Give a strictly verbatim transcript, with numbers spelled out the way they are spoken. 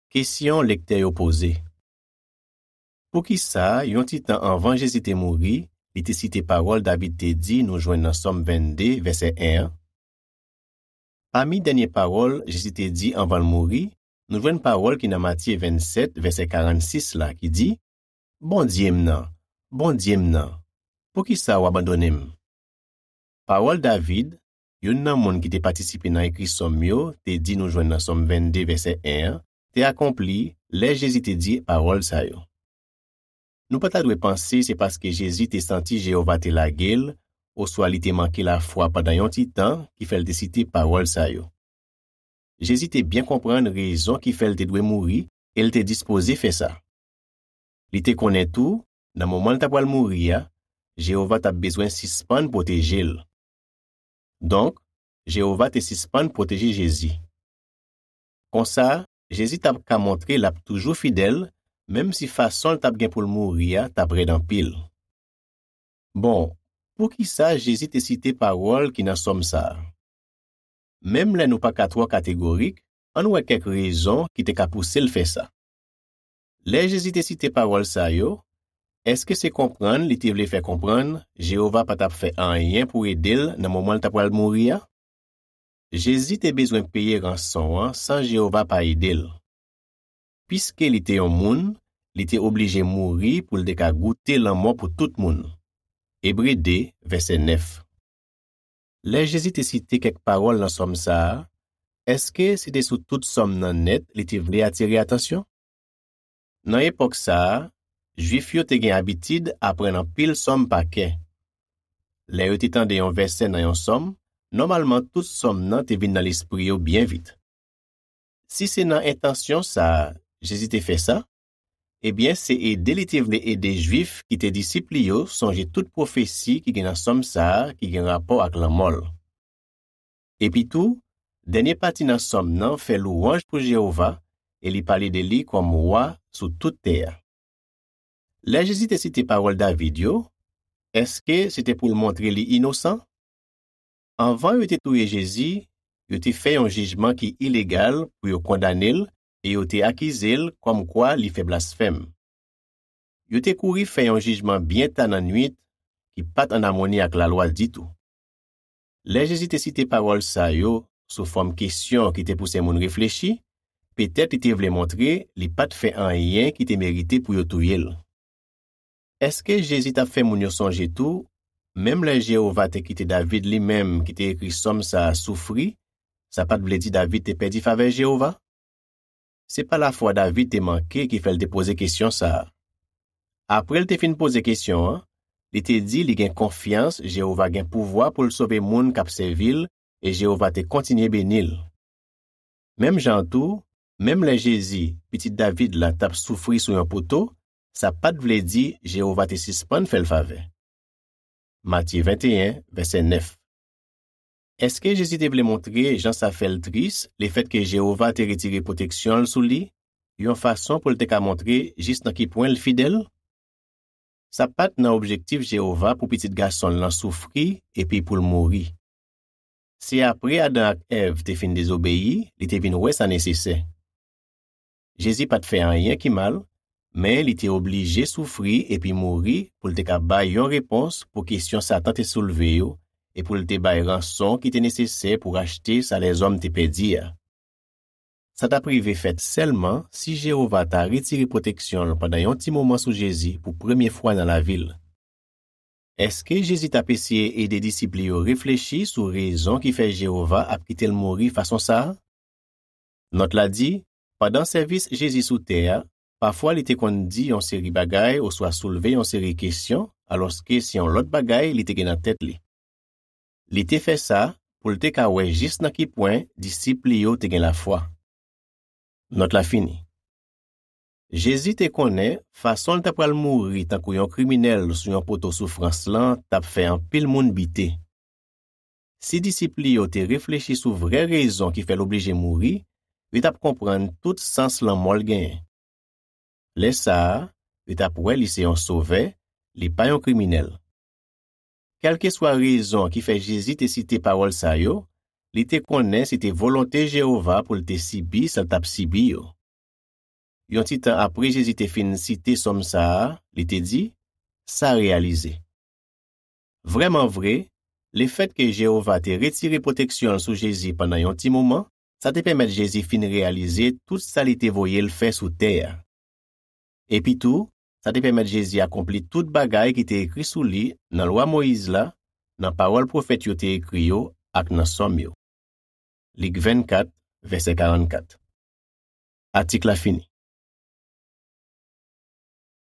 Kesyon lektè yo poze. Poukisa, yon ti tan anvan Jezi te mouri, li te site pawòl David te di nou jwenn nan Sòm vennde, vèsè en an? Pami dènye pawòl Jezi te di anvan l mouri, nou jwenn pawòl ki nan Matye vennsèt, vèsè karannsis la, ki di, Bondye m nan, Bondye m nan, poukisa w abandone m? Pawòl David, youn nan moun ki te patisipe nan ekri sòm yo, te di nou jwenn nan Sòm vennde, vèsè en an, te akonpli lè Jezi te di pawòl sa yo. Nou pa ta dwe panse se paske Jezi te santi Jewova te lage l, oswa li te manke lafwa pandan yon ti tan, ki fè l te site pawòl sa yo. Jezi te byen konprann rezon ki fè l te dwe mouri e l te dispoze fè sa. Li te konnen tou, nan moman l t apral mouri a, Jewova t ap bezwen sispann pwoteje l. Donk, Jewova te sispann pwoteje Jezi. Konsa, Jezi t ap ka montre l ap toujou fidèl, menm si fason l t ap gen pou l mouri a t ap rèd anpil. Bon, poukisa Jezi te site pawòl ki nan sòm sa a? Menm lè nou pa ka twò kategorik, ann wè kèk rezon ki te ka pouse l fè sa. Lè Jezi te site pawòl sa yo, èske se konprann li te vle fè konprann Jewova pa t ap fè anyen pou ede l nan moman l t apral mouri a? Jezi te bezwen peye ranson an san Jewova pa ede l. Piske li te yon moun, li te oblije mouri pou l te ka goute lanmò pou tout moun. Ebre de, vèsè nèf. Lè Jezi te site kèk pawòl nan sòm sa a, èske se te sou tout sòm nan nèt li te vle atire atansyon? Nan epòk sa a, Jwif yo te gen abitid aprann anpil sòm pa kè. Lè yo te tande yon vèsè nan yon sòm, nòmalman tout sòm nan te vin nan lespri yo byen vit. Si se nan entansyon sa a Jezi te fè sa, ebyen se ede li te vle ede Jwif ki te disip li yo sonje tout pwofesi ki gen nan sòm sa a ki gen rapò ak lanmò l. Epitou, dènye pati nan sòm nan fè lwanj pou Jewova e li pale de li kòm Wa sou tout tè a. Lè Jezi te site pawòl David yo, èske se te pou l montre li inosan? Anvan yo te touye Jezi, yo te fè yon jijman ki ilegal pou yo kondane l e yo te akize l kòmkwa li fè blasfèm. Yo te kouri fè yon jijman byen ta nan nuit ki pa t ann amoni ak lalwa ditou. Lè Jezi te site pawòl sa yo sou fòm kesyon ki te pouse moun reflechi, petèt li te vle montre li pa t fè anyen ki te merite pou yo touye l. Èske Jezi t ap fè moun yo sonje tou, menm lè Jewova te kite David li menm ki te ekri sòm sa a soufri, sa pa t vle di David te pèdi favè Jewova? Se pa lafwa David te manke ki fè l te poze kesyon sa a. Apre l te fin poze kesyon an, li te di li gen konfyans Jewova gen pouvwa pou l sove moun k ap sèvi l e Jewova te kontinye beni l. Menm jan an tou, menm lè Jezi, pitit David la, t ap soufri sou yon poto, sa pa t vle di Jewova te sispann fè l favè. Matye venteyen, vèsè nèf. Èske Jezi te vle montre jan sa fè l tris lefètke Jewova te retire pwoteksyon l sou li, yon fason pou l te ka montre jis nan ki pwen l fidèl? Sa pa t nan objektif Jewova pou Pitit Gason l lan soufri epi pou l mouri. Se apre Adan ak Èv te fin dezobeyi, li te vin wè sa nesesè. Jezi pa t fè anyen ki mal, men li te oblije soufri epi mouri pou l te ka bay yon repons pou kesyon Satan te soulve yo e pou l te bay ranson ki te nesesè pou rachte sa lèzòm te pèdi a. Sa t ap rive fèt sèlman si Jewova ta retire pwoteksyon l pandan yon ti moman sou Jezi pou premye fwa nan lavi l. Èske Jezi t ap eseye ede disip li yo reflechi sou rezon ki fè Jewova ap kite l mouri fason sa a? Nòt la di, pandan sèvis Jezi sou tè a, pafwa li te konn di yon seri bagay oswa soulve yon seri kesyon, alòske se yon lòt bagay li te gen nan tèt li. Li te fè sa pou l te ka wè jis nan ki pwen disip li yo te gen lafwa. Nòt la fini. Jezi te konnen fason l ta pral mouri tankou yon kriminèl sou yon poto soufrans lan t ap fè anpil moun bite. Si disip li yo te reflechi sou vrè rezon ki fè l oblije mouri, yo t ap konprann tout sans lanmò l genyen. Lè sa a, yo t ap wè li se yon sovè, li pa yon kriminèl. Kèlkeswa rezon ki fè Jezi te site pawòl sa yo, li te konnen se te volonte Jewova pou l te sibi sa l t ap sibi yo. yon ti tan apre Jezi te fin site sòm sa a, li te di, "Sa reyalize." Vrèman vre, lefètke Jewova te retire pwoteksyon l sou Jezi pandan yon ti moman, sa te pèmèt Jezi fin reyalize tout sa li te voye l fè sou tè a. Epitou, sa te pèmèt Jezi akonpli tout bagay ki te ekri sou li nan Lwa Moyiz la, nan pawòl pwofèt yo te ekri yo ak nan sòm yo. Lik vennkat, vèsè karannkat. Atik la fini.